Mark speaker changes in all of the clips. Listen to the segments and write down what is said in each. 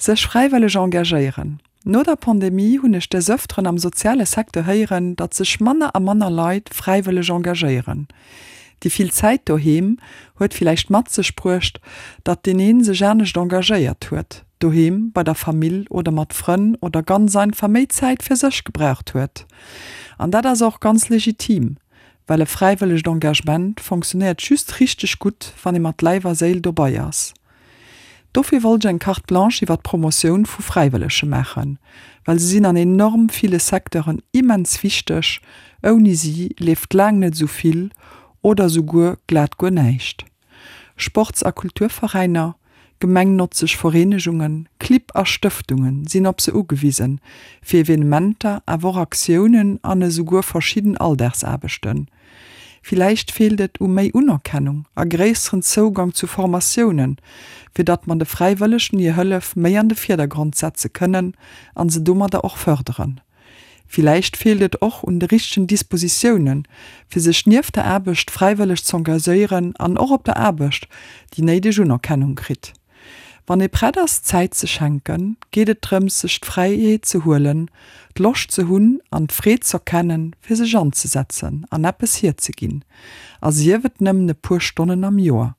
Speaker 1: Sech fräiwëlleg engagéieren. No der Pandemie hunn ech des Ëfteren am soziale Secteur héieren, datt sech manner a manner Leit fräiwëlleg engagéieren. Déi vill Zäit doheem huet villäicht mat sech bruecht, datt deen een sech anescht engagéiert huet, doheem, bei der Famill oder mat Frënn oder ganz einfach méi Zäit fir sech gebraucht huet. An dat ass och ganz legitim, well e fräiwëllegt Engagement fonctionnéiert just richteg gutt, wann ee mat Läif a Séil dobai ass. Dofir wollt ech eng Carte blanche iwwer d'Promotioun vu Fräiwëllege maachen, well se sinn an enorm ville Secteuren immens wichteg, ouni si leeft laang net esou vill oder esouguer glat guer näischt. Sports a Kulturveräiner, gemengnotzeg Vereenegungen, Clibb a Stëftunge sinn op se ugewisen, fir Evenementer, awer och Aktiounen an esouguer verschidden Alldagsaarbechten. Villäicht feelt et u méi Unerkennung a gréisseren Zougang zu Formatiounen, fir datt mer de Fräiwëllegen hir Hëllef méi an de Virdergrond setze kënnen an se domadder och fërderen. Villäicht feelt et och un de richtegen Dispositiounen, fir sech nieft der Aarbecht fräiwëlleg z'engagieren an och op der Aarbecht déi néideg Unerkennung kritt. Wann ee prett ass Zäit ze schenken, geet et drëms sech d'Fräiheet ze huelen, d'Loscht ze hunn an d'Freed z'erkennen, fir sech anzesetzen an eppes hierzeginn, a sief et nëmmen e puer Stonnen am Joer.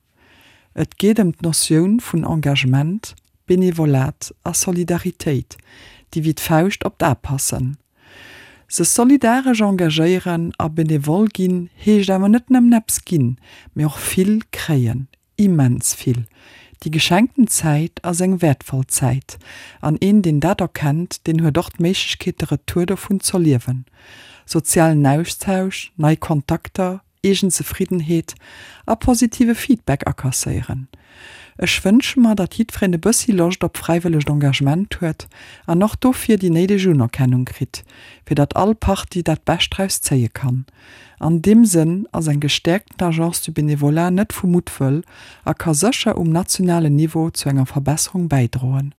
Speaker 1: Et geet ëm d'Notioun vun Engagement, Benevolat a Solidaritéit, déi wéi d'Fauscht op d'A passen. Sech solidaresch engagéieren a benevol ginn heescht awer net nëmmen eppes ginn, mee och vill kréien, Immens vill. Déi geschenkten Zäit ass eng wäertvoll Zäit, an een deen dat erkennt, deen huet och d'Méiglechkeet de Retour dovun z'erliewen. Sozialen Austausch, nei Kontakter, eegen Zefriddenheet a positive Feedback akasséieren. Ech wënsche mer, datt jiddwereen e bëssi Loscht op fräiwëllegt Engagement huet an och dofir déi néideg Unerkennung kritt, fir datt all Partie dat Bescht draus zéie kann. An deem Sënn ass eng gestäerkten Agence du Bénévolat net vu Muttwëll a ka sécher um nationalen Niveau zu enger Verbesserung bäidroen.